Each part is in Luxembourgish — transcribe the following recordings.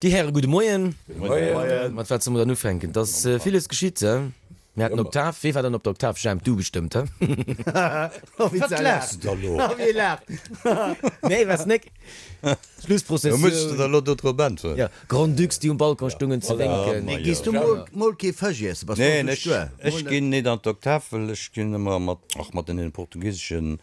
Déi Häre, gudde Moien. Gudde Moien. Mat wat solle mer dann ufänken? Et ass villes geschitt, he? Mir haten Oktav. Wee war dann op der Oktav? Jemp, du bestëmmt, he? Wat laachs de da lo? Wee laacht? Nee, waars nek? Schlussprozessioun. Muss ech der da lo do drop äntweren? Jo, Grand-Ducs, déi um Balcon stungen ze wénken. Mee gees du mol kee Fësch iessen? Bass du Neen, ech, ech ginn nit an d'Oktav, well ech ginn ëmmer mat, ach, mat den portugisesche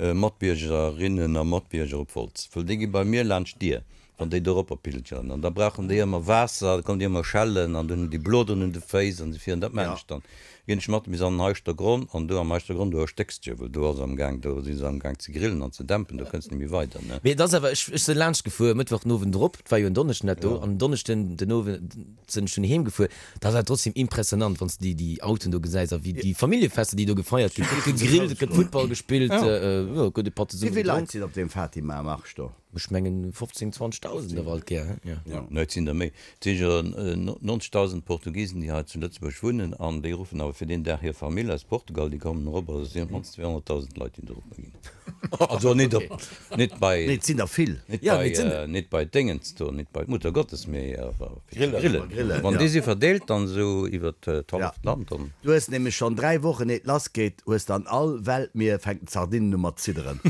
Matbiergerinnen a Matbierger op Wolz, well déi gi bei mir laanscht d'Dier. Wann déi doropper pilgeren, an da brauchen déi ëmmer Waasser, da kommen déi ëmmer schellen, an dunn hunn déi Bloderen un de Féiss an esou virun. Dat maachen ech dann. Da ginn ech mat bis an den Heischtergronn, an do am Heischtergronn, do erstécks de jo, well do ass am Gaang, do si se am Gaang ze grillen an ze dämpen, do kënns de net méi weider, ne. Mee et ass awer, ech ech sinn laanscht gefuer, Mëttwoch den Owend erop, et war jo en Donneschden dat do, an en Donneschden den Owend sinn ech dunn heem gefuer, dat ass awer trotzdem impressionant, wann s de déi déi Autoen do gesäis a wéi déi Familljefester, déi do gefeiert ginn, et gëtt gegrillt, et gëtt Futtball gespillt, jo, et gëtt e Patt zesumme gedronk. Wéi vill Leit sinn op deem Fatima-Marsch do? Ech mengen 15, 20.000 awer alt gär, he? Jo. Nee, et sinn der méi. Et si jo 90.000 Portugisen, déi hei zu Lëtzebuerg wunnen an déi ruffen awer fir deen Dag hir Famill aus Portugal, déi kommen erop. Also et sinn op d'mannst 200.000 Leit, déi do eropper ginn. Also net op, net bei. Nee, et sinn der vill. Net bei, net bei d'Déngens do, net bei d'Muttergottes, mee awer fir ze grillen. Wann déi si verdeelt dann esou iwwer d'halleft Land, dann. Du hues nämlech schonn 3 Wochen eet lass geet, hues dann all Weltmier fänken d'Sardinen u mat zidderen.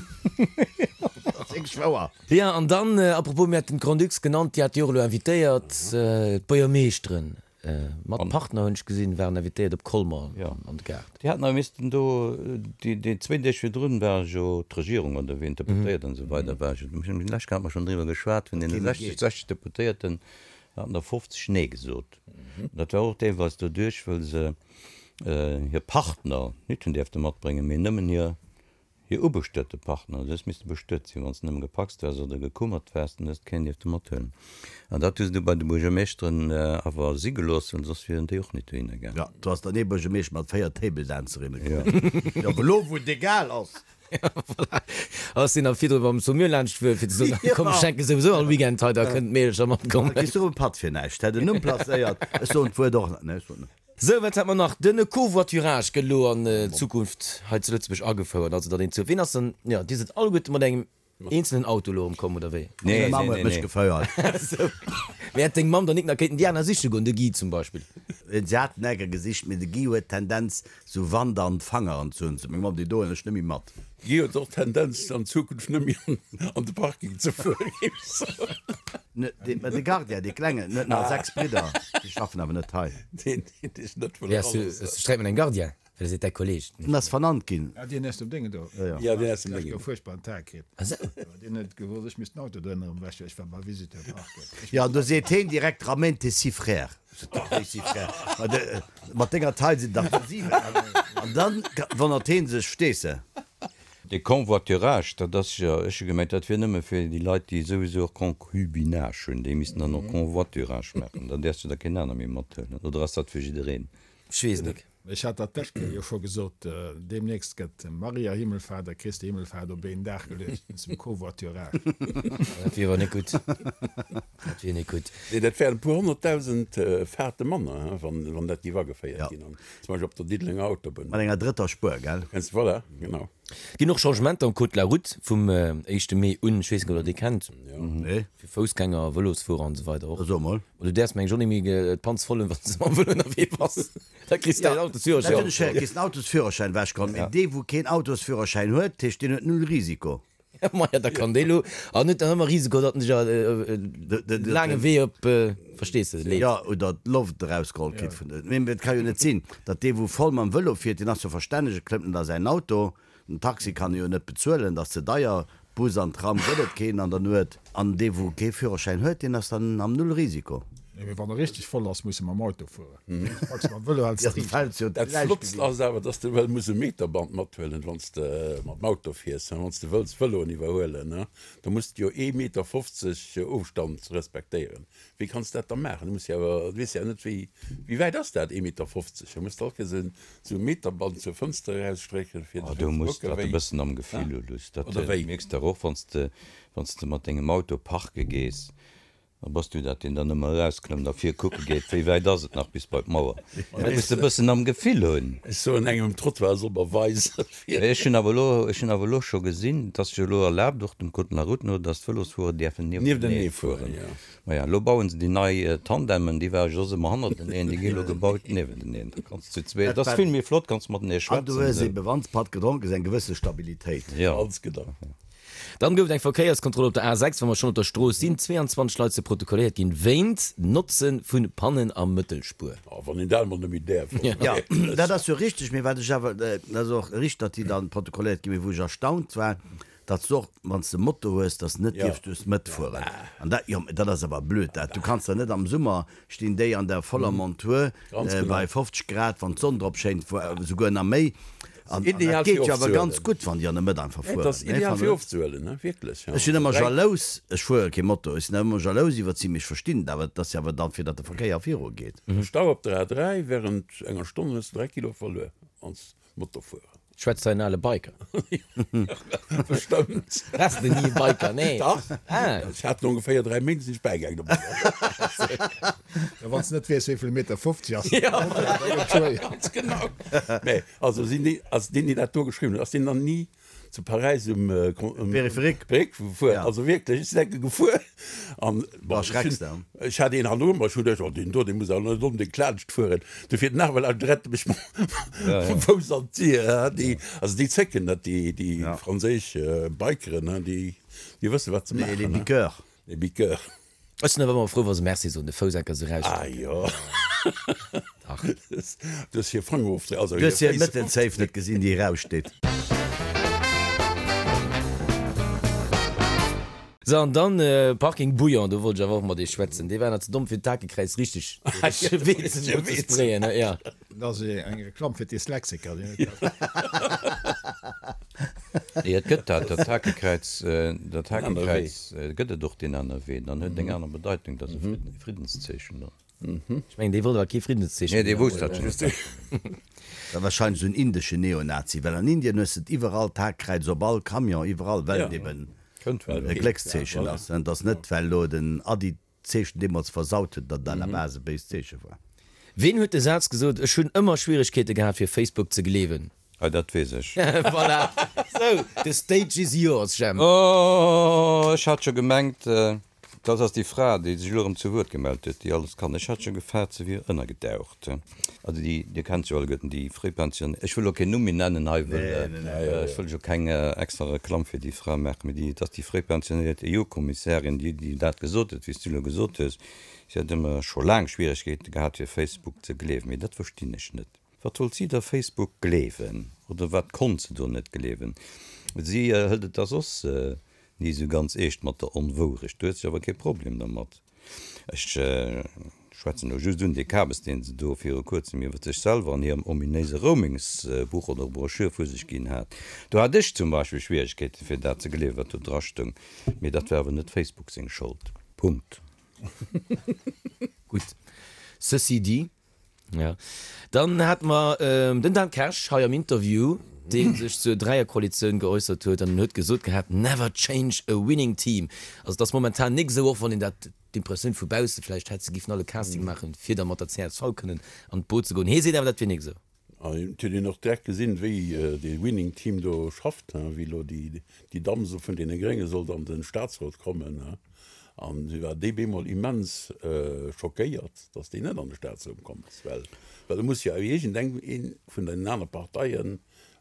Dat ass wierklech wouer. Jo, an dann, à propos, mir haten d'Grand-Ducs genannt, déi hat jo och elo invitéiert, d'Buergermeeschteren mat Partner, hunn ech gesinn, waren invitéiert op Colmer an de Gaart. Déi haten awer missten do, déi zwéin Deeg virdrun war jo d'Regierung oder wien, d'Deputéiert an esou weider war jo, lech hate mer schonn driwwer geschwat, vun deene 60, 60 Deputéierten haten der 50 Nee gesot. Dat war och deelweis doduerch, wëll se hir Partner nit hunn däerfte matbréngen, mee nëmmen hir Hir ubestuete Partner, du hues misste bestuet sinn, wann s de nëmme gepacst waars oder gekummert waars, dann hues de keen dierfte mathuelen. An dat hu se du bei de Buergermeeschteren awer si gelooss, well soss wieren déi och nit dohinner gaangen. Jo, do ass dann ee Buergermeeschter mat 4 Table-Dancerinne komm. Jo, awer elo wou et egal ass. Jo, voilà. Ass deen da virdru mam Saumur laanscht fuer, fir ze soen, komm, ech schenke souwisou all Weekend hei, da kënnen d'Meedelcher matkommen. Da kriss du erëm e Patt fir näischt. Hätt en Numm placéiert. Ech soen d'Wuert och net. Nee, ech soen net. Sou, wat hat mer nach? Den Covoiturage gëtt elo an Zukunft hei zu Lëtzebuerg agefouert. Also datt een zu, ween ass dann, jo, Dir sidd alleguerte mat engem eenzelen Auto elo erëm komm, oder wéi? Nee, Meng Mamm huet mech gefouert. Sou, mee hätt deng Mamm dann nik nach kéinten déi aner siche goen, de Guy zum Beispill? Si haten enker gesicht, mee de Guy huet d'Tendenz, sou Wand an d'Fangeren ze hunn. Sot meng Mamm, déi doen ech net méi mat. Guy huet och d'Tendenz, an Zukunft net méi an de Parking ze fueren, géif ech soen. Mä de Gardien, dee Klengen, en huet nach 6 Bridder, déi schaffen awer net hei. Deen, deen sech net wëll Wéi has du, eraloossen. hues du Sträit mat engem Gardien? Well e seet däi Kolleg. En ass vernannt ginn. Ah, deen aus dem Déngen do? Jo, jo. Ja, deen aus dem Deen Déngen. huet fuerchtbaren Tag kritt. Ah sou. Deen huet gewosst, ech misst den Auto do ënnerem wäschen, ech war bei Visiteur parken. Ech Jo, an do seet heen direkt, Ramène tes six frères. Sot de, Wéi six frères? Ma de, mat denger Taille sinn der dach 7. An dann wonnert heen sech, verstees de? De Convoiturage, dat ass jo, ech hu gemengt, dat wier nëmme fir déi Leit, déi souwisou och Concubinage hunn, déi missten dann och Convoiturage maachen, dann däerfs du der keen aner méi mathuelen, oder ass dat fir jiddereen? Ech weess et net. Ech hat dat d'lescht Kéier jo scho gesot, deemnächst gëtt Maria Himmelfahrt a Christi Himmelfahrt op een Dag geluecht wéinst dem Covoiturage. Dat wier awer net gutt. Dat wier net gutt. Nee, dat wären e puer honnertdausend Fahrte manner, wann dat géif ageféiert ginn. Zum Beispill op der Diddelenger Autobunn. Mat enger drëtter Spuer, gell? Kennst, voilà, genau. Ginn och Changementer am Code de la Route vum éischte Mee un. Ech weess net, ob der dee kennt. Nee. Fir Foussgänger, Vëlosfuerer an esou weider och. So mol. Ma du däerfs meng ech och net méi d'Panz voll hunn, wann s de mam Vëlo ënnerwee bass. Da kriss de däin Autosführerschäin. Dat hunn ech héieren, kriss den Autosführerschäin ewechgeholl. Mee dee wou keen Autosführerschäin huet, dat heescht deen huet null Risiko. Maja, da kann dee lo, an huet dann ëmmer Risiko, datt en sech e laange Wee op, verstees de, leet. Jo, oder d'Loft erausgeholl kritt vun de, mee et ka jo net sinn, datt dee wou voll mam Vëlo fiert, deen ass jo verstänneg, e klëmmt net a säin Auto, den Taxi kann e jo net bezuelen, dat ass ze deier, Bus an Tram gëtt et keen an der Nuet, an dee wou kee Führerschäin huet, deen ass dann am Null-Risiko. Nee, mee wann e richteg voll ass, muss e mam Auto fueren. Max mam Vëlo hälls Ja, du fäls jo Dat Flottst ass awer, dass de well muss e Meterband mathuelen, wann s de mam Auto fiers, wann s de wëlls Vëloen iwwerhuelen. Da muss de jo ee Meter 50 Ofstand respektéieren. Wéi kanns de dat da maachen? Du muss jo awer, du weess jo net, wéi, wéi wäit ass dat, ee Meter 50? Da muss de all Kéiers esou e Meterband zur Fënster erausstrécken, fir Oh, ze du muss kucken, dat e wéi, bëssen am Gefill hu, Luss. Dat oder wéi? mierks de och, wann s de, wann s de mat dengem Auto parke gees. A bass du dat, deen dann ëmmer erausklëmmt a vir kucke geet, wéi wäit ass et nach bis bei d'Mauer? Dat muss de bëssen am Gefill hunn. Ech soen engem um Trottoir, e soll mer weisen, fir. Ech hunn awer elo, ech hunn awer elo scho gesinn, et ass jo elo erlaabt, och dem Code de la route no, dass d'Vëlosfuerer däerfen niewentenee fueren. Maja, elo bauen se déi nei Tandemen, déi ware jo soss ëmmer hannerteneen, déi gi elo gebaut niewenteneen. Da kanns de zu zweet, dat ass vill méi flott, kanns matenee An du hues schwätzen. ebe, wann s Patt gedronk hues, eng gewësse Stabilitéit. Jo. Ganz genau. Dann gouf et eng Verkéierskontroll op der A6, wa mer schonn op der Strooss sinn. 22 Leit si protokolléiert ginn wéint Notze vu Pannen a Mëttelspuer. Oh, wann een dat emol net méi däerf. Jo, dat ass jo richteg, mee wat ech awer, dat ass och richteg, datt déi dann protokolléiert ginn, mee wou ech erstaunt war, datt s de och, wann s de Moto hues, datt s de net dierfs duerch d'Mëtt fueren. An dat, jo, mee dat ass awer blöd, dat. Du kanns der net am Summer stinn déi an der voller Montur bei 50 Grad, wann d'Sonn drop schéint, souguer nach méi. An dat geet jo awer ganz gutt, wann déi an der Mëtt einfach fueren. Et ass ideal fir ofzehuelen, wierklech. Ech sinn ëmmer jalous, ech fuere kee Moto, ech sinn awer ëmmer jalous iwwert si, mee ech verstinn et awer, et ass jo awer dann, fir datt de Verkéier viru geet. Stau op der A3, Wärend enger Stonn hues de 3 Kilo verluer als Motofuerer. Schwätzt hei en ale Biker? Bestëmmt. Waars de ni e Biker? Nee. Dach. Ah. Ech hat no ongeféier 3 Méint sinn ech bäigaangen dobäi. Ja, wann s de net weess, wéi vill Meter 50 ass, da gëtt et schwéier. Ganz genau. Mä also sinn déi, also deen, deen dat do geschriwwen huet, ass deen dann ni zu Paräis um, um Périphérique gefuer? Ja. Also wierklech, ech sinn enke gefuer an bon, ech hunn, ech hat een hannendru mer, ech hunn geduecht, oh deen do, dee muss awer net onbedéngt laanscht fueren. Du fiert den Arwel an rett mech mam Fouss an d'Dier. Déi, also déi zécken net, déi, déi franséisch Bikeren, déi, déi wësse wat se maachen. Les biqueurs. Les biqueurs. Ech sinn awer ëmmer frou, wa se Merci soen, de Fouss enker esou erausstrecken. Ah jo. Dach. Du hues hir Fanger ofdréi, also Du hues hir Mëttelzéif net gesinn, déi eraussteet. Sou, an dann Parking Bouillon, do wollt ech awer och mat iech schwätzen. Dee war nach ze domm fir d'Hakekräiz richteg ze sprayen, jo. Dat ass eng Reklamm fir d'Dyslexiker. Nee, et gëtt dat, dat Hakekräiz, dat Hakekräiz gëtt et och deen anere Wee, dann huet et eng aner Bedeitung, dat ass e Friddenszeechen dann. Ech mengen, dee wollt awer kee Friddenszeechen. Nee, dee wousst dat schonn. Dat warscheinlech esou en indeschen Neonazi, well an Indien hues de et iwwerall, d'Hakekräiz op all Camion, iwwerall, well et eben e Gléckszeechen ass. Et ass net, well elo den Adi d'Zeechen deemools versaut huet, datt et à la base e béist Zeeche war. Ween huet de Saz gesot, Ech hunn ëmmer Schwieregkeete gehat fir Facebook ze gleewen? Hei, dat weess ech. Voilà! Sou, the stage is yours, Jemp. Oh, ech hat scho gemengt, dat ass déi Fra, déi sech elo erëm zu Wuert gemellt huet, déi alles kann. Ech hat scho gefaart, se wier ënnergedaucht. Also déi, Dir kennt se jo alleguerten, déi Fréipension, ech wëll elo keen Numm méi nennen hei, wëll ech wëll jo keng extra Reklamm fir déi Fra maachen, mee déi, et ass déi fréipensionéiert EU-Kommissärin, déi, déi dat gesot huet, wéi s du elo gesot hues. Si hätt ëmmer scho laang Schwieregkeete gehat, fir Facebook ze gleewen. Mee dat verstinn ech net. Wat wollt si da Facebook gleewen? Oder wat konnt se do net gleewen? Si hëlt et da soss ni esou ganz eescht mat der Onwourecht. Do huet se awer kee Problem dermat. Ech schwätzen elo just un dee Kabes, deen se do viru kuerzem iwwer sech selwer an hirem ominéise Roamingsbuch oder Broschür vu sech ginn hat. Do hat ech zum Beispill Schwieregkeeten, fir dat ze gleewen, wat do drastoung. Mee dat war awer net Facebook seng Schold. Punkt. Gutt. Ceci dit. Jo. Dann hate mer den Dan Kersch hei am Interview, dee sech zur Dräierkoalitioun geäussert huet an en huet gesot gehat, Never change a winning team. Also et ass momentan nik esou, och wann een dat d'Impressioun vu bausse vläicht hätt, se giffen all e Casting maachen, fir da mat der csv kënnen an d'Boot ze goen. Hie seet awer, dat wier nik esou. An et huet een och direkt gesinn, wéi dee Winning Team do schafft, wéi elo déi Damm esou vun deene Grénge sollt an de Statsrot kommen. An si war déi bemol immens schockéiert, datt déi net an de Statsrot komm ass, well well e muss jo iergendeng ee vun den aner Parteien,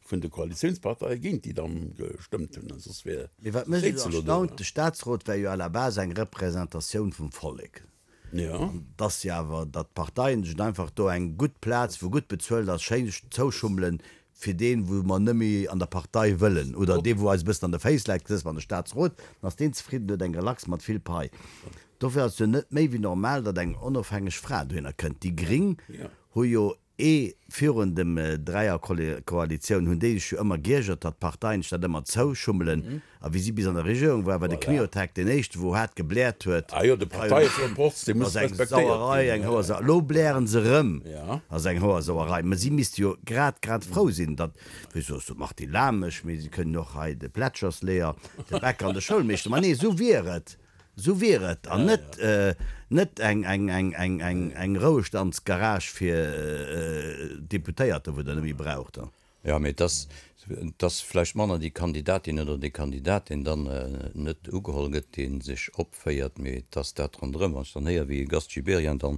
vun de Koalitiounsparteie géint déi Damm gestëmmt hunn, soss wär Mee wat mech esou elo do. erstaunt, de Statsrot wär jo à la base eng Representatioun vum Vollek. An et ass jo awer, datt d'Parteien sech einfach do eng gutt Plaz, wou gutt bezuelt ass, schéin zouschummelen, fir deen, wou mer net méi an der Partei wëllen, oder dee, wou eis e bëssen an de Féiss läit, gesäss mer an de Statsrot, dann ass deen zefridden, huet eng Relax mat vill Pai. Dofir ass et jo net méi wéi normal, datt eng onofhängeg Fra dohinner kënnt. Déi Gring hu jo Ee virun dem Dräierkoalitioun hunn déi sech jo ëmmer giergert, datt d'Parteien sech dat ëmmer zouschummelen. A wéi si bis an der Regierung war, war de Kmiotek deen éischte wou haart gebläert huet, ass eng Sauerei, eng Hoersauerei. Elo blären se erëm, ass eng Hoersauerei. Mä si misste jo grad grad frou sinn, datt, wéi soss de Martin Lamesch, mee si kënnen och hei de Plätschersleeër, de Bäcker an de Schoulmeeschter, ma nee, esou wier et. Sou wier et, an net net eng eng eng eng eng eng Rouestandsgarage fir Deputéierter, wou Der net méi braucht. Jo, mee et ass, et ass vläicht manner déi Kandidatin oder dee Kandidat, deen dann net ugeholl gëtt, dee sech opféiert, mee et ass dat ronderëm. Wann ech dann héier, wéi e Gast Gibéryen dann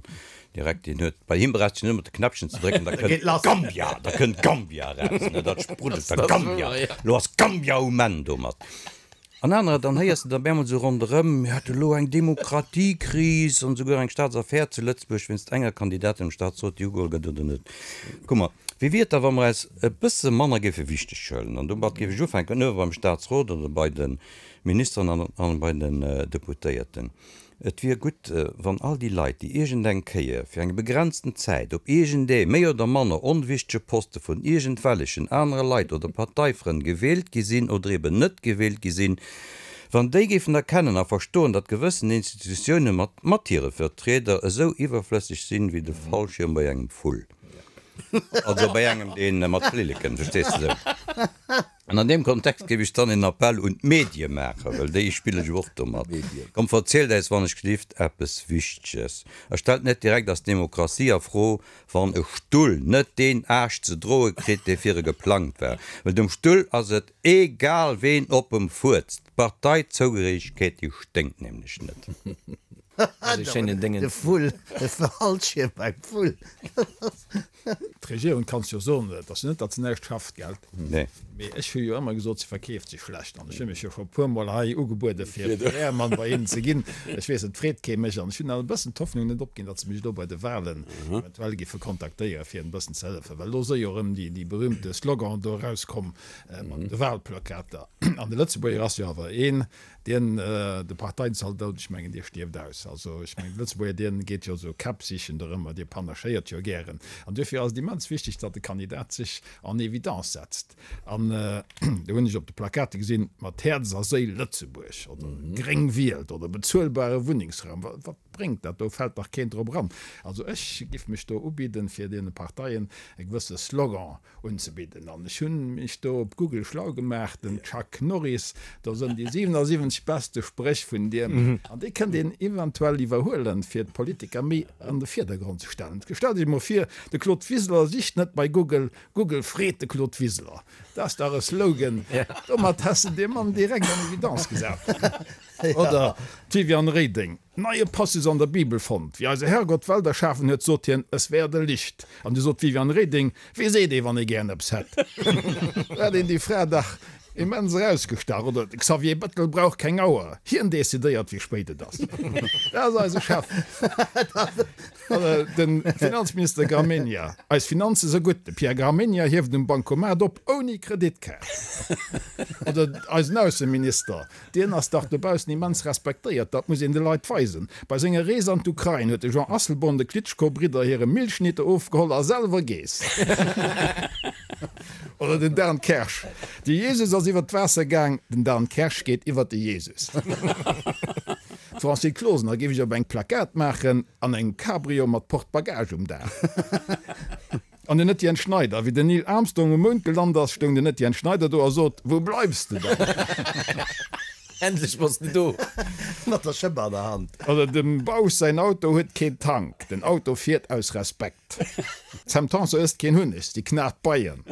direkt, deen huet, bei him brauchst du nëmmen op de Knäppchen ze drécken, da kënnt Gambia, da kënnt Gambia eraus, ne, dat spruddelt da, Gambia, elo ass Gambia um Enn domat. An anerer, dann héiers de der bemol sou ronderëm, mir hätte lo eng Demokratiekris an esouguer eng Staatsaffär zu Lëtzebuerg wéinst enger Kandidatin am Staatsrot, déi ugeholl gëtt oder net. Kuck mol, wéi wier et da, wa mer eis e bësse manner géife wichteg huelen? An domat géif ech ufänken, uewe beim Staatsrot oder bei de Ministeren an bei den Deputéierten. Et wier gutt, wann all déi Leit, déi iergend eng Kéier fir eng begrenzten Zäit op iergendee méi oder manner onwichtege Poste vun iergendwellechen anere Leit oder Parteifrënn gewielt gi sinn oder eben net gewielt gi sinn, wann déi géifen erkennen a verstoen, datt gewëssen Institutioune mat mat hire Vertrieder esou iwwerflësseg sinn, wéi de Fallschierm bei engem Vull. Also bei engem, dee mat Flilleken, verstees de, sou. An an deem Kontext géif ech dann een Appell un d'Medie maachen, well déi spille jo och domat, Kommt, verzielt äis wann ech gelift eppes Wichteges a stellt net direkt eis Demokratie a Fro, wann e Stull net deen Aascht ze droe kritt, dee fir e geplangt war. Well dem Stull ass et egal, ween op em fuerzt. D'Parteizougehéiregkeet, déi sténkt nämlech net. De Vull, de Fallschierm beim Vull. D'Regierung, kanns jo soen, et ass jo net, datt se näischt schafft, gell? Nee. Mee ech hu jo ëmmer gesot, se verkeeft sech schlecht. An ech hu mech jo scho e puermol hei ugebuede fir PR-Mann bei hinnen ze ginn. Ech weess, et freet kee mech. An ech hunn awer e bëssen d'Hoffnung net opginn, datt se mech elo bei de Wahlen eventuell giffe kontaktéieren, fir en bëssen ze hëllefen. Well elo si jo erëm déi berühmte Slogan do erauskomm mat de Wahlplakater. An de Lëtzebuerger ass jo awer een, Dien, de Parteienzaldot, ech mengen, dee stierft aus. Also, ech mengen, de Lëtzebuerger, dien geet jo esou Käpp sichen dorëmmer, dee panachéiert jo gären. An duerfir ass et immens wichteg, datt de Kandidat sech en évidence setzt. An do hunn ech op de Plakate gesinn, mat Häerz a Séil Lëtzebuerg oder Gréng wielt oder bezuelbare Wunnengsraum. Wat bréngt dat? Do fält dach keen drop eran. Also ech giff mech do ubidden, fir deene Parteien e gewësse Slogan unzebidden. An ech hunn mech do op Google schlau gemaach, den Chuck Norris, do sënn déi 77 beste Spréch vun diem, an déi kënnt een eventuell iwwerhuelen, fir d'Politiker méi an de Virdergrond ze stellen. Stellt Iech emol vir, de Claude Wiseler sicht net bei Google, Google freet de Claude Wiseler. Dat ass dach e Slogan, domat häss de dee Mann direkt an Evidence gesat. Oder d'Viviane Reding, Neie Passus an der Bibel fonnt, Wéi eise Herrgott d'Welt erschafen huet, sot hien, Es werde Licht. An du sot d'Viviane Reding, Wéi seet ee, wann ee gären eppes hätt? Do hat een déi Fra dach immens erausgestach. Oder de Xavier Bettel brauch keng Auer, hien decidéiert, wéi spéit et ass. Dat ass eise Chef. Oder de Finanzminister Gramegna, Eis Finanze se gutt, de Pierre Gramegna hieft um Bancomat op ouni Kreditkaart. Oder eisen Ausseminister, Dien ass dach dobaussen immens respektéiert, dat muss een de Leit weisen. Bei senger Rees an d'Ukrain huet de Jean Asselborn de Klitschko-Bridder hire Milchschnitte ofgeholl a selwer geess. Oder den Dan Kersch, De Jesus ass iwwer d'Waasser gaang, den Dan Kersch geet iwwer de Jesus. D'Francine Closener géif ech op eng Plakat maachen, an engem Cabrio mat Porte-Bagage um Daach. An den Etienne Schneider, Wéi den Neil Armstrong um Mound gelant ass, stoung den Etienne Schneider do a sot, Wou bleifs de dann? Endlech bass de do! Mat der Schëpp an der Hand. Oder dem Bausch säin Auto huet keen Tank, den Auto fiert aus Respekt. D'Sam Tanson ësst keen Hunneg, si knat d'Beien.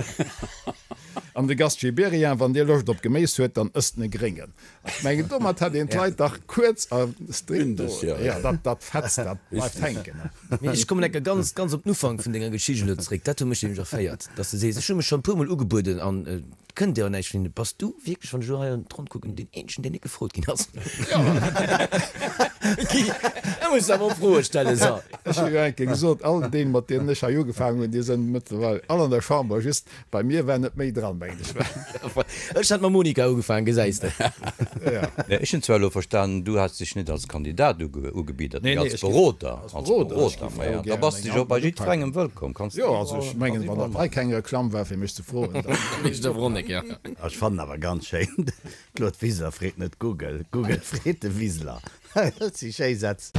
An de Gast Gibéryen, Wann dir Loscht op Geméis huet, dann ësst en e Gréngen. Ech mengen, domat hätt een d'Leit dach kuerz a strikt do. Jo, dat, dat fetzt, dat bleift hänken. Mee ech kommen enke ganz, ganz op den Ufank vun denger Geschicht elo zréck. Dat huet mech nämlech erféiert, dass de sees, ech hu mech schonn e puermol ugebueden an et kënnt dir awer näischt vun hinnen. Bass du wierklech, wann ech elo hei an d'Ronn kucken, deen eenzegen, deen net gefrot ginn ass? Guy, da muss de awer och Froe stellen, so. Ech hu jo eng Kéier gesot, all déi, mat deenen ech hei ugefaangen hunn, déi sënn mëttlerweil all an der Chamber, just Bei mir war net méi dran, mengen ech. Ech hat mam Monika ugefaangen, gesäis de. Ech hunn zwar elo verstanen, du häss dech net als Kandidat ugebiddert, mee als Beroder. Als Beroder, maja, da bass de jo bei jiddwerengem wëllkomm. Kanns Jo, also ech mengen, wann dat hei keng Reklamm war, fir mech ze froen, dann. Ech fannen awer ganz schéin, Claude Wiseler freet net Google, Google freet de Wiseler. Dat si schéi Sätz.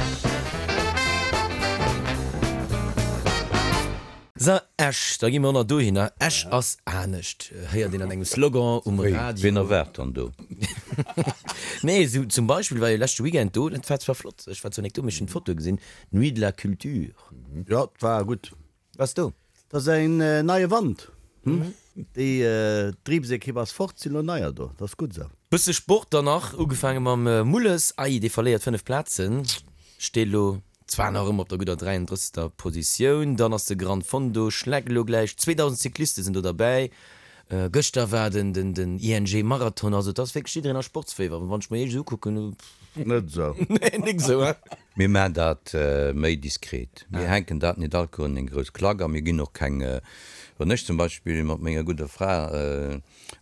Sou, Esch, da gi mer och nach dohinner. Esch ass anescht, héiert een an engem Slogan um Radio. Wien erwaart dann do? Nee, esou zum Beispill war jo leschte Weekend do, dat war zwar flott, ech war zwar nek do, mee ech hunn d'Fotoe gesinn, d'Nuit de la Culture. Jo, 't war gutt. Waars do? 't ass en neie Wand, hm? Déi Driibsekipp ass fort, sinn elo neier do, 't ass gutt esou. Bësse Sport dann nach, ugefaange mam Mulles, ei, dee verléiert 5 Plazen, steet elo zwar nach ëmmer op der gudder 33. Positioun. Dann ass de Gran Fondo Schleck elo gläich, 2.000 Cycliste sinn do derbäi. Gëschter war den den ING Marathon, also et ass wierklech jiddereen a Sportsféiwer, wann ech mer iech esou ukucken. Net esou. Nee, nik esou, hein? Mir maachen dat méi diskret. Mir hänken dat net all Kéier un eng grouss Klack a mir ginn och keng, wann ech zum Beispill mat menger gudder Fra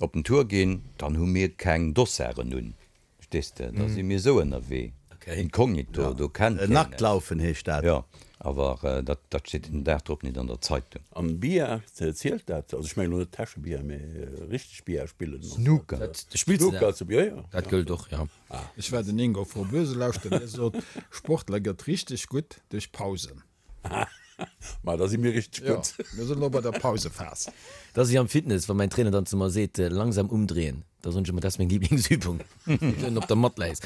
op den Tour ginn, dann hu mir keng Dossaren un. Verstees de? Da si mir esou ënnerwee, inkognito, do kennt keen eis. Nacktlaufen heescht dat. Jo, awer dat steet den Dag drop net an der Zeitung. An Billard, zielt dat? Also ech mengen elo net Täschebillard, mee richteg Billard spillen. Snooker. Spills de dat? Jo, jo. Dat gëllt och, jo. Ech war den Ingo Froboese lauschteren, dee sot, Sportler gëtt richteg gutt duerch Pausen. Ma da si mir richteg gutt. Jo, mir sinn elo bei der Pausephas. Dat ass wéi am Fitness, wa mäin Trainer dann zu mer seet, langsam umdrehen, da soen ech ëmmer, dat ass meng Lieblingsübung, wann du op der Matt läis.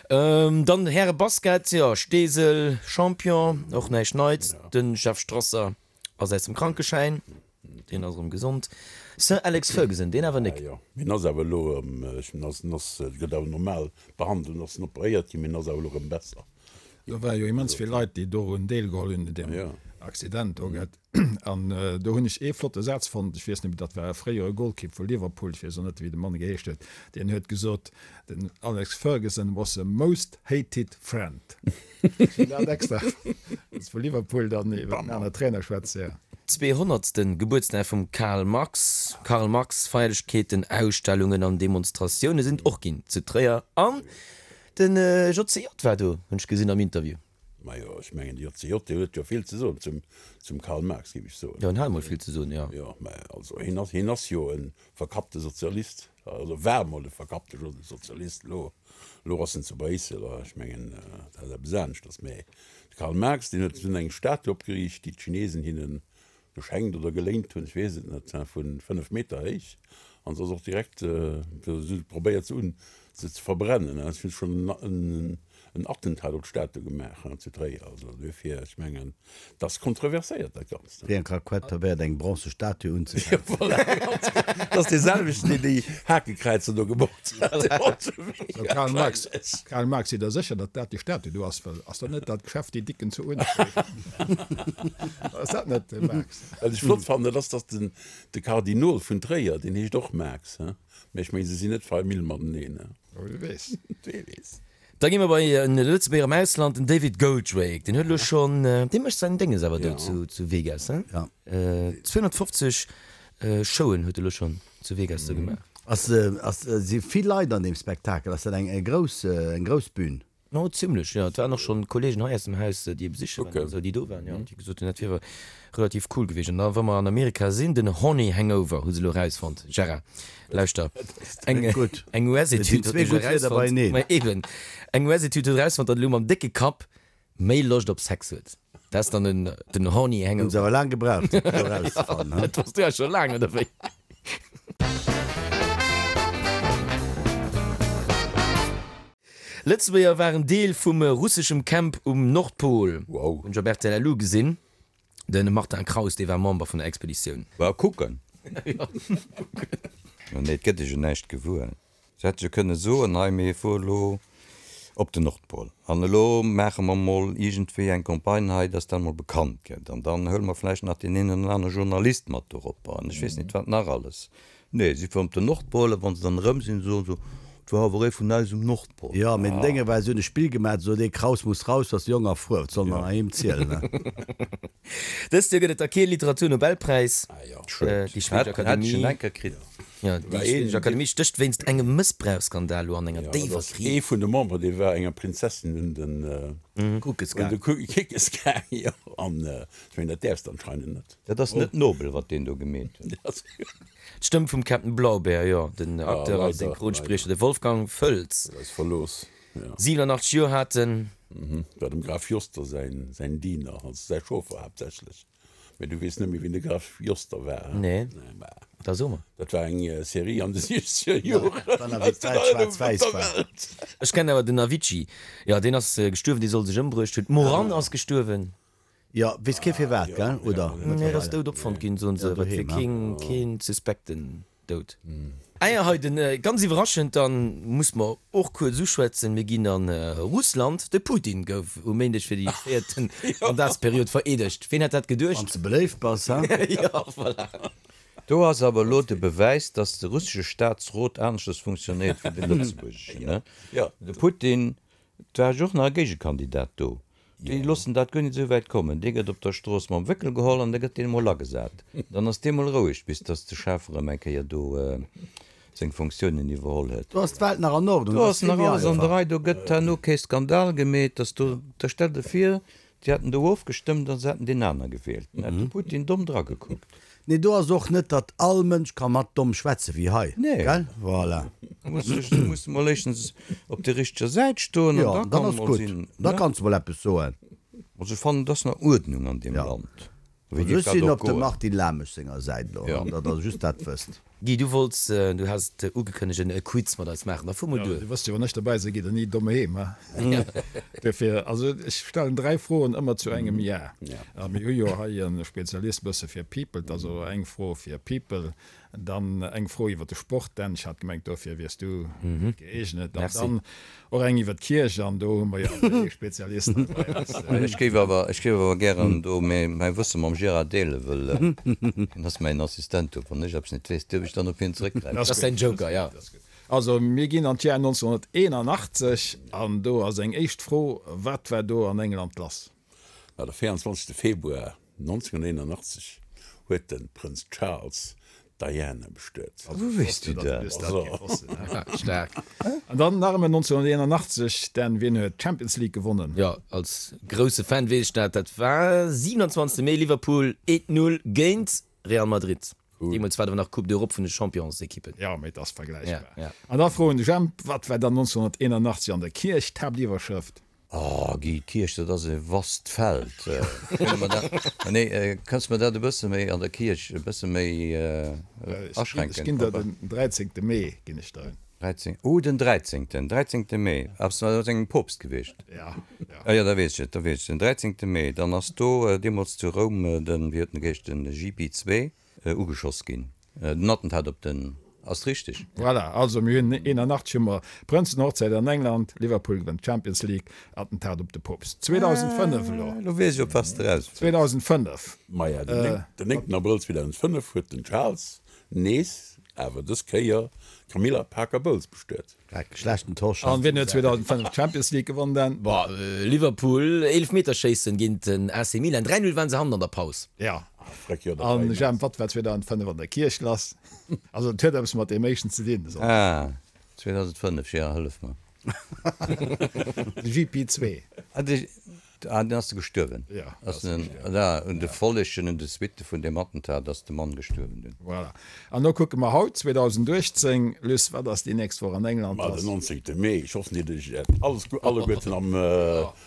Dann Häre Basket, jo, Steesel Champion, och näischt Neits. De Jeff Strasser ass aus dem Krankeschäin, deen ass erëm gesond. Sir Alex Ferguson, deen awer nik. Jo, mee en ass awer elo erëm, en ass, en ass, gëtt awer normal behandelt, en ass operéiert ginn, mee en ass awer elo erëm besser. Do ware jo immens vill Leit, déi dorun deelgeholl hunn, un deem Accident do. An do hunn ech ee flotte Saz fonnt, ech weess net méi, dat war e fréiere Golkipp vu Liverpool, ech weess och net, wéi de Mann geheescht huet, deen huet gesot, den Alex Ferguson was the most hated friend. Ech hunn dat extra, dass vu Liverpool dann iwwer en anere Trainer schwätzt, jo. Zweehonnertste Gebuertsdag vum Karl Marx, Karl Marx, Feierlechkeeten, Ausstellungen an Demonstratioune sinn och ginn zu Tréier an Den JCJ war do, hunn ech gesinn am Interview. Majo, ech mengen de JCJ, dee huet jo vill ze soen zum, zum Karl Marx, géif ech soen. Jo, en hat emol vill ze soen, jo. Jo, mä also hien ass, hien ass jo e verkappte Sozialist, also war emol e verkappte Sozialist, elo, elo ass en zu Bréissel, a ech mengen, dat ass eppes aneschters. Mä de Karl Marx, deen huet dunn eng Statue opgeriicht, déi d'Chinesen hinnen geschenkt oder geléint hunn, ech weess et net, vu 5 Meter héich an se ass och direkt, si hu probéiert se un se ze verbrennen, si hu schonn en Attentat op d'Statue gemaach zu Tréier, also duerfir, ech mengen, et ass kontroverséiert dat Ganzt. Wéi eng Raquette probéiert eng bronze Statue unzefänken. Jo voilà, ganz genau, dat ass dee selwechten, deen déi Hakekräizer do gebaut hat. So Karl Marx, Karl Marx, sidd der sécher, datt dat déi Statue do ass? Well ass dat net dat Geschäft déi Dicken zu Uenerspuer? Ass dat net de Marx? Wat ech flott fannen, dat ass, datt den de Kardinol vun Tréier, deen heescht och Marx, he? Mä ech mengen, se sinn net Famill mateneen, he? Wie weess. Wie weess. Da gi mer bei en Lëtzebuerger am Ausland, den David Goldrake. Deen huet elo schonn, dee mécht säin Dénges awer do zu zu Vegas, he? Ja. 250 Showen huet e lo schonn zu Vegas do gemaach. Ass, ass, si vill Leit an deem Spektakel? Ass dat eng grouss, eng grouss Bühn? No, zimlech, jo. Et waren och schonn Kollegen hei aus dem Haus, déi e besiche waren an esou, déi do waren, jo, déi gesot hunn, dat wier relativ cool gewiescht. An da, wa mer an Amerika sinn, den Horny Hangover hu se elo erausfonnt. Gérard, lauschter, eng, eng US-Etüd huet nämlech erausfonnt, ma eben, eng US-Etüd huet erausfonnt, datt elo mam décke Kapp méi Loscht op Sex huet. Dat ass dann den, den Horny Hangover. Hunn se awer laang gebraucht, fir dat elo erauszefannen, he? Dat wosst du ja scho laang, oder wéi? Lëtzebuerger waren Deel vum russeschem Camp um Nordpol. Wow. Hunn ech op rtl Lu gesinn. De Martin Kraus, dee war Member vun der Expeditioun. War kucken. Nee, et gëtt ech jo näischt gewuer. Se hätte jo kënne soen, hei mir fuere elo op den Nordpol an elo maache mer mol iergendwéi eng Campagne hei, dass dat mol bekannt gëtt an dann huele mer vläicht nach deen een oder anere Journalist mat dorop an ech weess net wat nach alles. Nee, si fueren op den Nordpol a wann se dann erëm sinn, soen se, et war awer ee vun eis um Nordpol. Jo, mee den Dénge war, si hunn e Spill gemaach, se sot, ee Kraus muss raus, ass jong a frou, wat soll mer nach him zielen, ne? Dëst Joer gëtt et da kee Literaturnobelpräis. Schued. Déi schwedesch Hätt ech Akademie, en enker kritt. jo, déi schwedesch Akademie stécht wéinst engem Mëssbrauchsskandal elo an enger déiwer Kris. Ee vun de Memberen, dee war enger Prinzessin un den Kuckes un de Kickes gaang, jo. An ech mengen, dat däerfs de anscheinend net. Dat ass net nobel, wat deen do gemeet huet. D'Stëmm vum Captain Blaubeer, jo, den Acteur a Synchronspriecher, de Wolfgang Völz, 87 Joer hat en. War dem Graf Joster säin Diener, also säi Chauffer haaptsächlech. Mee du weess net méi, wien de Graf Joster war, he? Nee, da so mer. Dat war eng Serie an de siechzeger Joren. War nach wéi d'Welt schwaarz-wäiss war. Ech kennen awer den Avicii. Jo, deen ass gestuerwen, dee soll sech ëmbruecht hunn. D'Moran ass gestuerwen. Jo, weess kee firwat, gell, oder? Nee, et ass dout opfonnt ginn, soen se, awer et wier keen, keen suspekten Doud. Ah jo, hei den, ganz iwwerraschend, dann muss mer och kuerz uschwätzen, mir ginn an Russland, de Putin gouf um Méindeg fir déi véierten Mandatsperiod vereedegt. Ween hätt dat geduecht? Wann s de beléift bass, he? Jo, voilà. Do ass awer elo de Bewäis, dass de russesche Staatsrot aneschters funktionéiert wéi de lëtzebuergeschen, ne? De Putin Et war jo och nach e Géigekandidat do. Déi loossen dat guer nit esou wäit kommen. Dee gëtt op der Strooss mam Wéckel geholl an da gëtt deen emol agesat. Dann ass dee mol roueg, bis datt de Chef erëm eng Kéier do seng Fonctiounen iwwerholl huet. Do ass d'Welt nach an Ordnung, Do ass nach alles an der Rei. Do gëtt herno kee Skandal gemeet, datt do, da stell der vir, Déi hätten do ofgestëmmt an se hätten deen aner gewielt. Dann hätt de Putin domm dragekuckt. Nee, do ass och net, datt all Mënsch ka mat domm schwätze wéi hei, Nee. gell? Voilà. Du muss dech, du muss mol éischtens op der richteger Säit stoen an Jo, da dann kann ass mol gutt. sinn, Da ne? kanns du mol eppes soen. Also ech fannen, et ass nach Uerdnung an deem Ja. Land. Wéi Also géif ech dat sinn och op dem goen? Martin Lamesch senger Säit elo, Ja. datt Der just dat wësst. Guy, du wollts, du has et ugekënnegt, en Quiz mat eis maachen. Da fuer mol Jo, duer. du wësst jo, wann ech dobäi sinn, geet der ni domm heem, he? Duerfir, also ech stellen 3 Froen ëmmer zu engem Jar. A mir hu jo hei e Spezialist bësse fir People, also eng Fro fir People, dann eng Fro iwwer de Sport, Dan, ech hat gemengt, dofir wiers du gëeegnet, an dann Och eng iwwer d'Kierch, an do hu mer jo awer ee Spezialist hei bei eis. Ech géif awer, ech géif awer gären do mäi Wësse mam Gérard deelen, wëll hien ass mäin Assistent do. Wann ech eppes net weess, dierf ech dann op hien zeréckgräifen. Dat ass däin Joker, jo. Also, mir ginn an d'Jar 1981, an do ass eng éischt Fro, Wat war do an England lass? Ma de 24 Februar 1981 huet de Prënz Charles d'Diana bestuet. Wou weess du dat? Staark. An dann nach ëmmer 1981, Dan, wien huet d'Champions League gewonnen? Jo, als grousse Fan weess ech dat. Dat war 27 Mee, Liverpool 1, 0 géint Real Madrid. Deemools war et awer nach Coupe d'Europe vun de Championsekippen. Jo, mee et ass vergläichbar. Ja, ja. An da froen de Jemp, Wat war dann 1981 an der Kierch d'Haaptiwwerschrëft? Oh Guy, d'Kierch, dat ass e vast Feld. Kënne mer dat, nee, kanns de mer dat e bësse méi an der Kierch e bësse méi aschränken? Ech ginn der den 13. Mee, ginn ech der en. 13, oh den 13., 13. Mee, ass dat engem Poopst gewiescht? Ja, ja. Ah jo, da weess ech et, da weess ech et. Den 13. Mee, dann ass do deemools zu Roum den, wéi huet en geheescht, den JP2 ugeschoss ginn. Den Attentat op den, ass richteg? Voilà, also mir hunn 81 hu mer Prënzenhochzäit an England, Liverpool gewënnt d'Champions League, Attentat op de Poopst. 2005 elo. Elo weess ech op wat s de eraus wëlls. 2005. Maja, den 9 Abrëll 2005 huet den Charles nees, awer dës Kéier d'Camilla Parker Bowles bestuet. Dreck, schlechten Tosch. An wien huet 2005 d'Champions League gewonnen Dan? Boah, Liverpool, Eelefmeterschéissen géint den AC Milan, 3, 0 waren se hannen an der Paus. Ja. Freck, jo, dat An war immens. Jemp, wat war 2005 an der Kierch lass? Also et huet eppes mat deem éischten ze dinn. Ah, 2005, Gérard, hëllef mer. De JP2. Ah, de. Ah, den ass de gestuerwen? Ja, ass den, da, un de Follegen, un de Suitte vun deem Attentat ass de Mann gestuerwen dunn. Voilà. An lo kucke mer haut, 2018. Luss, wat ass déi nächst Woch an England Ma lass? den 19. Mee, ech hoffen, Dir hutt Iech alles, alleguerten am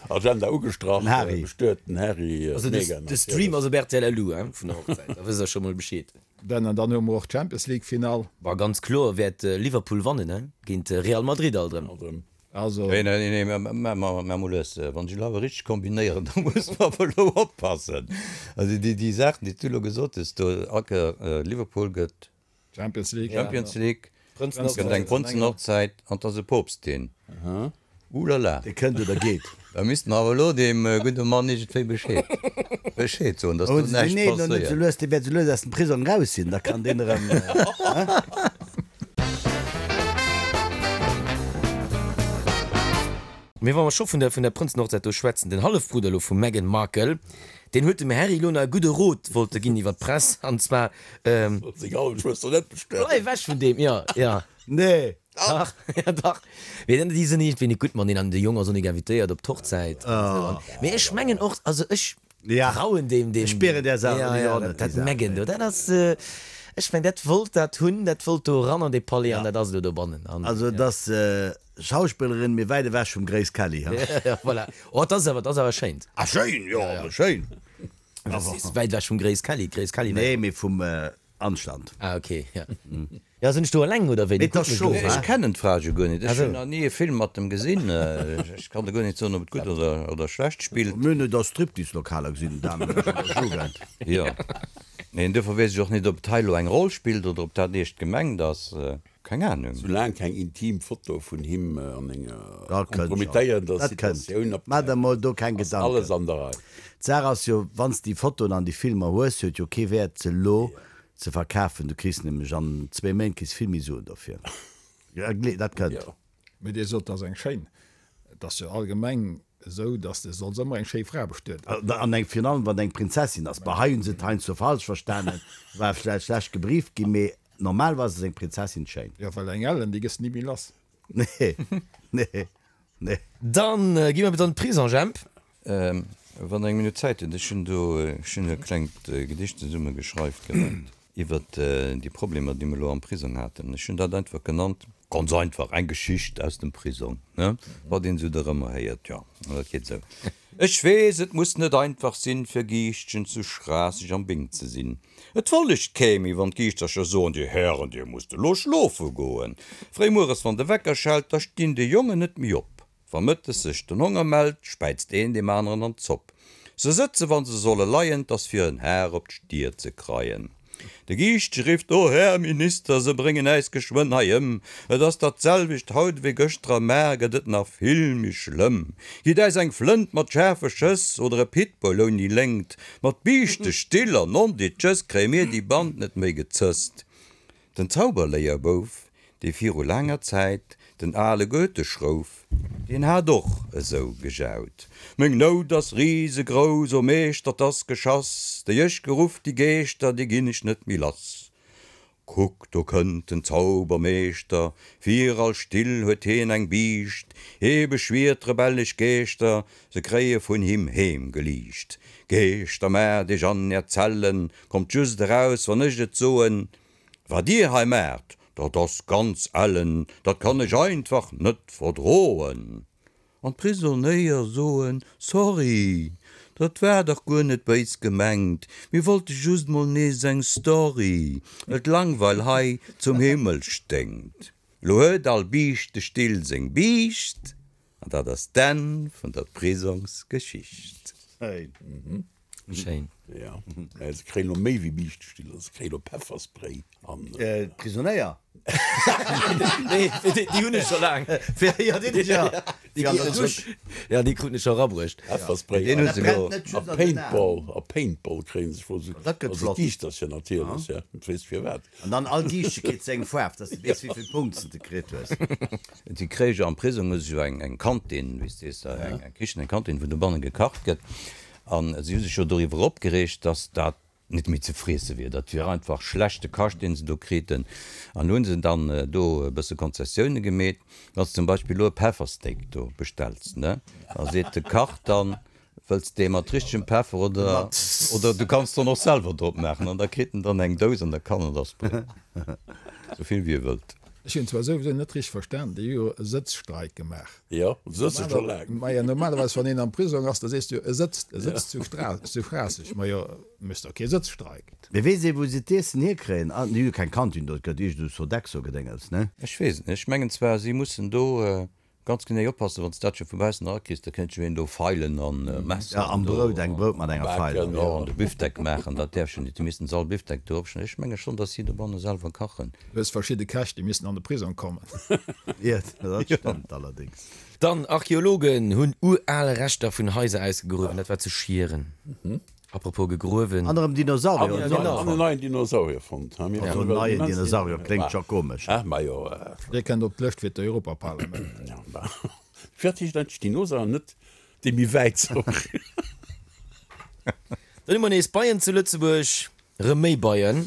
Agenda ugestrach. Den Harry. Bestuet den Harry, Also de, d'Meghan de Stream natierlech. ass op rtl LU, hein, vun der Hochzäit, da wësst der scho mol Bescheed. Dann, an dann hu mer och d'Champions League Finall. Bah, ganz kloer wäert Liverpool wannen, hein, géint Real Madrid alt erëm. Alt erëm. Also. Nee, nee, nee, mä mä mol lues. Wann ech elo awer richteg kombinéieren, da muss mer awer elo oppassen. Also déi, déi Saachen, déi s du elo gesot hues do, Anke, Liverpool gëtt Champions League. Champions League, gëtt eng Prënzenhochzäit an 't ass e Poopst deen. Oulala. Dee kënnt oder geet. Da misste mer awer elo deem gudde Mann iergendwéi Bescheed, Bescheed soen, dass do näischt Nee, elo net passéiert. sou lues, dee wäert sou lues aus dem Prisong raus sinn, da kann deen erëm, hein? Mee wa mer scho vun der vun der Prënzenhochzäit do schwätzen, den Hallefbrudder elo vum Meghan Markle, deen huet dem Harry elo nach e gudde Rot wollte ginn iwwer d'Press, an zwar, Sollt seng Hallefschwëster net bestellen. Bleif ewech vun deem, jo, jo. Nee. Dach, ja dach. Mee dann, déi sinn iergendwéi net gutt mateneen an de Jong ass och nik invitéiert op d'Hochzäit an esou. An, mee ech mengen och, also ech trauen deem, deem. Ech spieren där Saach Ja, och ja, net, dat déi Saach. Meghan do, dat ass, ech meng, dat wollt dat hunn, dat wollt do eran an dee Palais an dat ass elo dobannen. An, Also et ass Schauspillerin, mee wäit ewech vum Grace Kelly, ha? Ja, voilà. Oh, dat ass awer, dat ass awer schéint. Ah schéin, jo, schéin. Dat ass wäit ewech vum Grace Kelly. D'Grace Kelly war. Nee, mee vum Anstand. Ah ok, ja. Ja, sinn ech do eleng oder wéi? Mee 't ass scho, Ech wa? kennen d'Fra jo guer net. Ech hunn nach ni e Film mat em gesinn. Ech kann der guer net soen, ob et gutt oder, oder schlecht spillt. Mir hunn et a Striptease-Lokaler gesinn, den Damen an der Jugend. Jo. Mee duerfir weess ech och net, ob et hei elo eng Roll spillt oder ob dat eescht gemengt ass. Keng Ahnung. Soulaang keng intim Foto vun him an enger Dat kënnt scho. kompromittéierender Dat kënnt. Situatioun Maach der opdaucht, mol do keng ass alles Gedanken. an der Rei. D'Saach ass jo, wann s de déi Fotoen an déi Filmer hues, huet jo kee Wäert se elo ze verkafen. Du kriss nämlech an zwéi Méint kriss vill méi Suen dofir. Dat kënnt. Jo. Mee Dir sot, 't ass eng schéin. Et ass jo allgemeng esou, dass de solls ëmmer eng schéi Fra bestueden. An eng, virun allem wann et eng Prinzessin ass. Bah, hei hunn se et heiansdo falsch verstanen, war vläicht schlecht gebrieft ginn, mee Normalerweis ass eng Prinzessin schéin. Jo, well eng Ellen, déi gëss de ni méi lass. Nee, nee, nee. Dann gi mer bis an d'Prison, Jemp. Wann Der eng Minutt Zäit hutt, ech hunn do, ech hunn e klengt Gedicht zesumme geschreift gehat iwwert déi Problemer, déi mer elo am Prisong haten. Ech hunn dat einfach genannt, ganz einfach, eng Geschicht aus dem Prisong, ne, wat een esou dorëmmer héiert. Jo, an dat geet esou. Ech weess, et muss net einfach sinn, fir Giischtchen zu Schraasseg am Bing ze sinn. Et follegt kee méi, wann d'Giischtercher soen, Dir Hären, dir musst elo schlofe goen. Fréi mueres, wann de Wecker schellt, da stinn déi Jongen net méi op. Wa mëttes sech den Honger mellt, späizt een deem aneren an d'Zopp. Se sëtze wa se solle leien, 't ass fir en Har op d'Stier ze kreien. De Giischtche rifft, O Här Minister, se bréngen äis geschwënn hei ëm! Et ass dat selwecht haut ewéi gëschter a mar gëtt et nach vill méi schlëmm. Gitt äis eng Flënt mat schaarfe Schëss oder e Pitbull ouni Léngt, mat Biischtestill an Nonditschëss kréie mir déi Band net méi gezësst. Den Zauberléierbouf, dee viru laanger Zäit den ale Goethe schrouf, deen hat och esou gejaut, Meng Nout ass risegrouss, o Meeschter, 't ass geschass, déi ech geruff, déi Geeschter, déi ginn ech net méi lass. Kuck, do kënnt den Zaubermeeschter, fir all Still huet hien eng Biischt, hie beschwiert rebellesch Geeschter, se kréie vun him heem geliicht. Geeschter, maacht iech an är Zellen, kommt just eraus, wann ech et soen, Wat dir hei maacht, dat ass ganz ellen, dat kann ech einfach net verdroen. An d'Prisonéier soen, Sorry, dat war dach guer net béis gemengt, mir wollte just mol nees eng Story, well d'Langweil hei zum Himmel sténkt. Lo huet all Biischtestill seng Biischt, an dat ass d'Enn vun der Prisongsgeschicht. Schéin. Ja, mä se kréien elo méi wéi Biischtestiller, se kréien elo Pefferspray an. D'Prisonéier? Nee, déi hunn ech scho laang. Jo, déi hunn ech jo. Déi an der Dusch. Ja, déi kruten ech scho erabruecht. Pefferspray Deen hu se elo. a Paintball, a Paintball kréien se scho. Dat gëtt Also flott. d'Giischtercher natierlech, ja, et weess firwat. An dann all Giischtche kritt seng Faarf, dass de weess, wéi vill Punkts de kritt hues. Déi kréie jo am Prisong hu se jo eng Kantin, wéi s de sees, eng Kichen, eng Kantin, wou dobanne gekacht gëtt. A si hu sech jo doriwwer opgereegt, dass dat net méi ze friesse wier. Dat wier einfach schlechte Kascht, dee se do kriten. An elo hu se dann do e bësse Konzessioune gemeet. Wann s de zum Beispill elo e Peffersteak do bestells, ne, da seet de Kach dann, Wëlls de dee mat richtegem Peffer oder, oder du kanns dann och selwer drop maachen. An da kritt en dann eng Dous an da kann en der sprayen, sou vill wéi e wëllt. Ech hunn zwar souwisou net richteg verstan, déi hu jo e Sëtzstreik gemaach. Jo, sëtze scho laang. Majo, normalerweis wann een am Prisong ass, da sees du jo, e sëtzt, e sëtzt zu Stra, zu Schraasseg. Majo, méchs der kee Sëtzstreik. Mee weess ee wou se d'Iessen hierkréien? Ah, déi hu jo keng Kantin do, et gëtt iergend esou Sodexo-Gedéngels, ne? Ech weess et net. Ech mengen zwar, si mussen do Ganz genee oppassen, wann s dat scho vu baussen erakriss, da kéint jo een do Feilen an Messer Ja, am do Brout, eng Brout mat enger Feil. Jo, an de Bifdeck maachen, dat däerf jo net, déi missten se all Bifdeck do opschneiden. Ech menge schonn, datt si dobanne selwer kachen. Du hues verschidde Käch, déi missten an de Prisong kommen. Jo, dat stëmmt allerdéngs. Dann, Archeologen hunn ural Reschter vun Haiser ausgegruewen, dat war zu Schieren. Apropos gegruewen. An erëm Dinosaurier An en neien Dinosaurier fonnt. Also en neien Dinosaurier kléngt scho komesch. Majo. Dee kënnt op d'Lëscht fir d'Europaparlament. Firwat heescht eigentlech Dinosaurier an net dee méi wäit Saurier? Dann hu mer nees Beien zu Lëtzebuerg. Rëm méi Beien.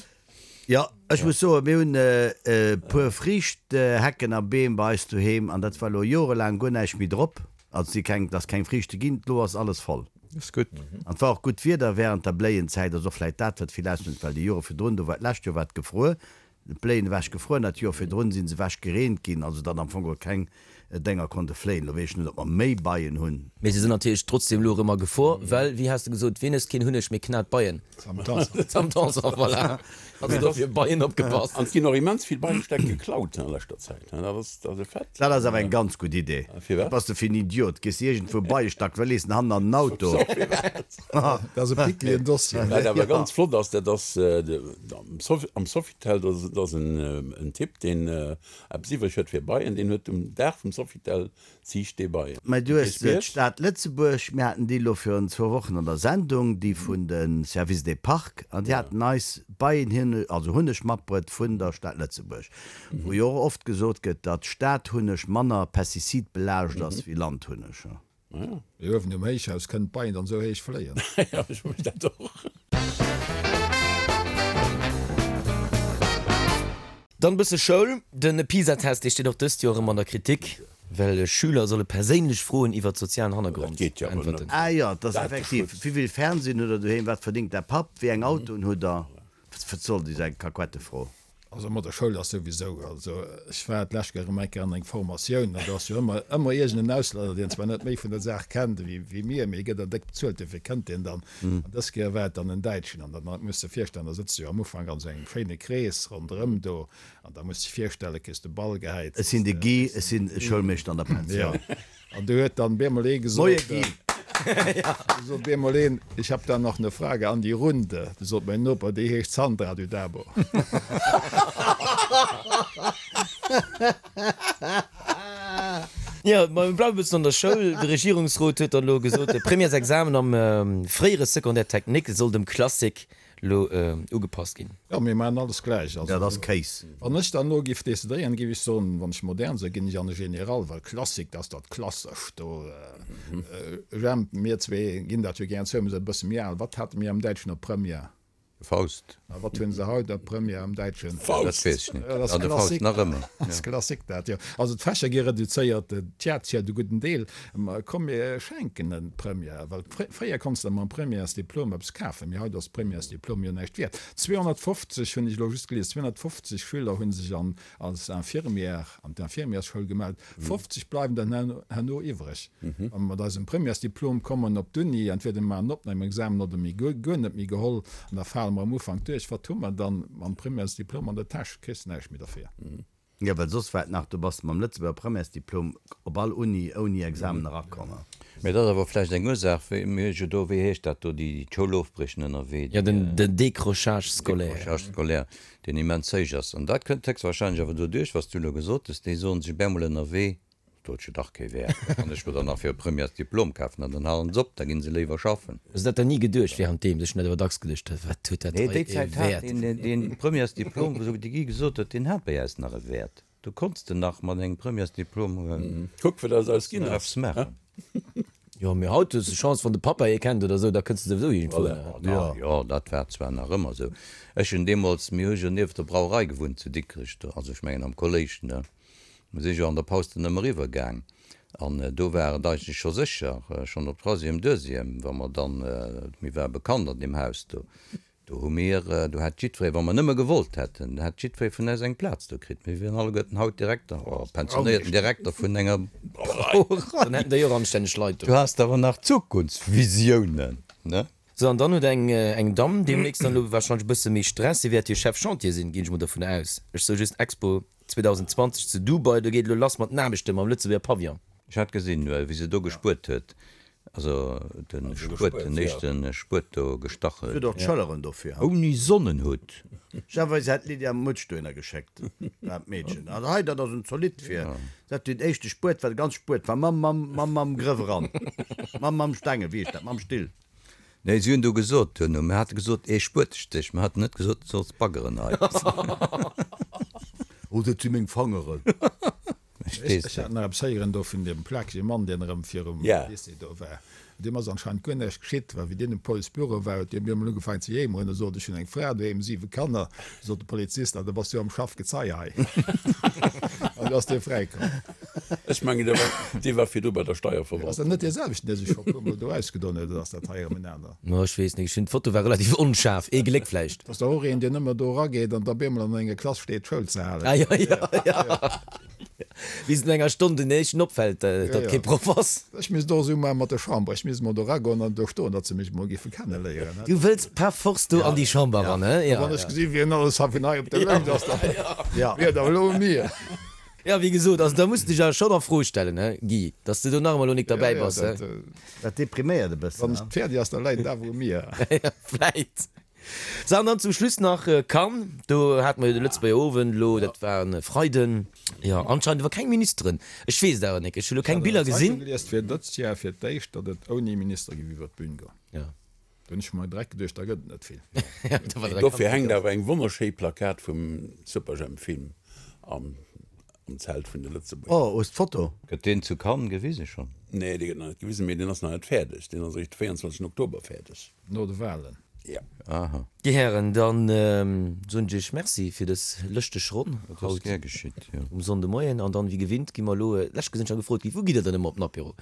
Jo, ech muss soen, mir hunn e puer Friichtehecken a Beem bei eis doheem an dat war elo jorelaang guer näischt méi drop. Also si keng, et ass keng Friichte ginn, elo ass alles voll. Ass gutt. An et war och gutt Wieder während der Bléienzäit, ass och vläit dat wat vill ausmécht, well déi Jore virdrun, do war d'lescht Joer war et gefruer, d'Bléien ewech gefruer an dat Joer virdrun si se ewech gereent ginn, also datt am Fong geholl keng. Dénger konnte fléien. Elo weess ech net, ob mer méi Beien hunn. Mee se sinn natierlech trotzdem elo erëm a Gefor, well, wéi has de gesot, ween ësst keen Hunneg, mee knat Beien? Sam Tanson. Sam Tanson, voilà. Also dofir Beien opgepasst. An et ginn och immens vill Beiestäck geklaut a leschter Zäit. Dat ass, dat ass e Fait. Dat ass awer eng ganz gutt Idee. Firwat? Wat bass de fir en Idiot? Gees de iergendwou Beiestack, well lees en hannen an den Auto. Dat ass e pickligen Dossier. Wat awer ganz flott ass, dat ass am Sofitel, dat ass en Typ, deen Eppes iwwreg huet fir Beien, deen huet um Dag vum Sofitel ziicht dee Beien. Mä du hues d'Stad Lëtzebuerg, mir haten déi elo virun zwou Wochen an der Sendung, déi vun de Service des Parcs, an déi haten eis Beienhunneg, also Hunneg matbruet vun der Stad Lëtzebuerg, wou jo och oft gesot gëtt, datt Stadhunneg manner pestizidbelaascht ass wéi Landhunneg. Mee uewen um Héichhaus kënnen d'Beien dann esou héich fléien. Jo, ech froe mech dat och. Dann e bësse Schoul. De PISA-Test, dee steet och dëst Joer erëm an der Kritik, well Schüler solle perséinlech Froen iwwert sozialen Hannergrond beäntwerten. Ah jo, et ass effektiv. Wéivill Fernsehen hutt der doheem? Wat verdingt däi Papp? Wéi eng Autoen hutt der? Wat soll déi sou eng Kakuettefro? Also mat der Schoul ass souwisou, also ech war d'lescht Kéier erëm eng Kéier an eng Formatioun an do ass jo ëmmer, ëmmer iergend en Auslänner, deen zwar net méi vun der Saach kennt ewéi, wéi mir, mee e gëtt dann déck bezuelt, duerfir kënnt deen dann. An dës Kéier war et dann en Däitschen an dann muss de virstellen, da sëtz de jo am Ufank an esou engem schéine Krees ronderëm do an da muss de virstellen, kriss de Ball gehäit. Ech sinn de Guy, ech sinn Schoulmeeschter an der Pensioun. An du huet dann bemol ee gesot, Moie Guy! Du sot bemol een, Ich hab da noch ne Frage an die Runde. Du sot mäin Noper, Déi heescht Sandra, du Dabo. Jo, ma mir bleiwe bëssen an der Schoul. De Regierungsrot huet dann elo gesot, de Premièresexamen am fréiere Secondaire technique soll dem Classique lo ugepasst ginn. Jo, mir maachen alles gläich. Also, Dat ass Kéis. wann ech dann elo giff decidéieren, giff ech soen, wann ech modern sinn, ginn ech an de General, well Klassik, dat ass dat Klassescht do. Jemp, mir zwee ginn dat jo gären zou, mir sinn e bësse méi al. Wat hate mir am Däitschen op Première? Faust. A wat hunn se haut op Première am Däitschen? Faust! Dat weess ech net. Dat ass Ah, de Faust Klassik. nach ëmmer. Dat ass Klassik dat, jo. Also d'Fächer gi reduzéiert, d'Tiatière de gudden Deel. Ma komm, mir schenken en d'Première, well fréier konns de mam Premièresdiplom eppes kafen, mee haut ass d'Premièresdiplom jo näischt wäert. 250, hunn ech elo just gelies, 250 Schüler hu sech an als Infirmière an d'Infirmièrsschoul gemellt, 50 bleiwen der herno iwwreg. Wa mer mat eisem Premièresdiplom kommen op d'Uni, entweder mir maachen en Opnamexamen oder mir gi guer net méi geholl an da fale mer am Ufank duerch. Wat hu mer dann mam Premièresdiplom an der Täsch? Kriss näischt méi derfir. Jo, well soss war et nach, do bass de mam Lëtzebuerger Premièresdiplom op all Uni ouni Examen erakomm. Mee dat ass awer vläicht eng Ursaach, wéi mir hu jo do, wéi heescht dat do, déi d'Schoul ofbriechen ënnerwee, Jo, den Décrochage scolaire. Décrochage scolaire, deen immens héich ass. An dat kënnt héchstwahrscheinlech awer doduerch, wat s du elo gesot hues, déi soen sech op eemol ënnerwee, Do huet jo dach kee Wäert. Da kann ech mer dann nach fir e Premièresdiplom kafen an dann halen se op, da ginn se léiwer schaffen. Hues de dat dann ni geduecht währenddeem? Ech hunn dat awer dacks geduecht, wat huet dat Nee, hei déi ee Zäit hat Wäert? deen, deen Premièresdiplom, wou de Guy gesot huet, deen hat bei äis nach e Wäert. Do konns de nach mat engem Premièresdiplom Kuck, wat aus eis ginn nach ass, eppes maachen. Jo, mee haut hues de Chance, wann de Pappa ee kennt oder esou, da kënns de souwisou iergendwou hin. Ja, jo, dat war zwar nach ëmmer esou. Ech hunn deemools, mir hu jo nieft der Brauerei gewunnt zu Dikrech, do, also ech mengen am Kolléisch, ne? Mir si jo an der Paus dann ëmmer eriwwer gaang an do war et eigentlech scho sécher, schonn op Troisième, Deuxième, wa mer dann, mir ware bekannt an deem Haus do, do hu mir, do hätt jiddweree, wa mer nëmme gewollt hätten, hätt jiddweree vun eis eng Plaz do kritt. Mir wieren alleguerten haut Direkter, oh, pensionéierten Direkter vun enger Brauerei. Dann hätten der jo och anstänneg Leit do. Du has awer nach Zukunftsvisiounen, ne? Sou, an dann huet eng eng Damm deemnächst dann elo warscheinlech e bësse méi Stress, si wäert jo Chef Chantier sinn, ginn ech mol dovun aus. Ech soe just Expo 2020 zu Dubai, do geet elo lass mat den Aarbechte mam Lëtzebuerger Pavillon. Ech hat gesinn, wéi se do gespuert huet, also de Spuet, den éischte Spuet do gestach huet. Si huet och d'Schëlleren dofir. Ouni Sonnenhutt. Ech si hat d'Lydia Mutsch dohinner geschéckt, dat Meedchen. Also hei, dat ass en zolidd fir. Dat den éischte Spuet war, de ganze Spuet war mam, mam, mam, mam Grëff eran. Mam, mam Stengel, wéi heescht dat, mam Still. Nee, si hunn do gesot duerno, mir hate gesot, ee Spuetestéch, mir haten net gesot, du solls baggeren hei. Oh, dat si meng Fangeren. Ech hat nach eppes héieren do vun deem plakege Mann, deen erëm virum Lycée do war. Deem ass anscheinend guer näischt geschitt, well wéi deen um Policebüro war, huet deen op eemol ugefaangen ze jéimeren a sot, Ech hunn eng Fra doheem, siwe Kanner. Sot de Polizist, Ah, da bass du jo am Schaff, Gezei hei. An du ass dee fräikomm. Ech mengen, dee war, dee war virdru bei der Steierverwaltung. Ass dat net dee selwechten, dee sech scho e puermol do ausgedon huet, oder ass dat hei erëm en aner? No, ech weess net. Ech hunn, d'Foto war relativ onschaarf. Ee Gléck vläicht. Dat ass dach och een, deen ëmmer do erageet an da op eemol an enger Klass steet, Schoul ze halen. Ah, jo, jo, jo. Bis no enger Stonn den éischten opfält, datt kee Proff ass. Ech misst och esou maache mat der Chamber. Ech misst emol do eragoen an do stoen, datt se mech emol géife kenneléieren. Du wëlls par force do an déi Chamber eran, he? Wann ech gesinn, wien alles hei vun hei op der Lëscht ass, da wier et awer elo u mir. Jo, wéi gesot, also da muss de dech awer schonn a Fro stellen, he Guy, datt s de do nach emol elo nik derbäi bass, he? Dat depriméiert e bëssen, Wann et fäerdeg ass, da läit et awer u mir. Vläit. Sou, an dann zum Schluss nach Cannes. Do hate mer jo de Lëtzebuerger Owend elo, dat war e Freiden. Jo, anscheinend awer keng Ministeren. Ech weess et awer nik, ech hu lo keng Biller gesinn. Ech hat an der Zeitung gelies, et wier dëst Jar fir d'éischt, datt et ouni Minister géif iwwer d'Bün goen. Jo. Do hunn ech mer direkt geduecht, da gëtt et net vill. Dofir hänkt awer eng wonnerschéi Plakat vum Superjhemp-Film am Zelt vun de Lëtzebuerger. Oh, hues d'Foto? Gëtt deen zu Cannes gewise schonn? Nee, dee gëtt nach net gewisen, mee deen ass nach net fäerdeg. Deen ass eréischt de 24 Oktober fäerdeg. No de Wahlen. Ja. Aha. Dir Hären, dann soen ech Iech Merci fir dës lëschteg Ronn Dat ass haut gär geschitt, jo. um Sonndemoien. An dann, wéi gewinnt, gi mer elo, d'lescht Kéier sinn ech nach gefrot ginn, Wou gitt Der dann ëmmer op den Apéro?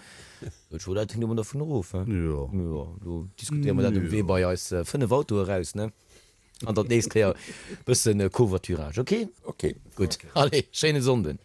Sot ech, Oh, dat hänkt ëmmer dervun erof, he? Jo. Jo, do diskutéiere mer dat um Wee bei eis 5 Autoe raus, ne? An dann d'nächst Kéier bëssen Covoiturage, ok? Ok. Gutt, allez, schéine Sonnden.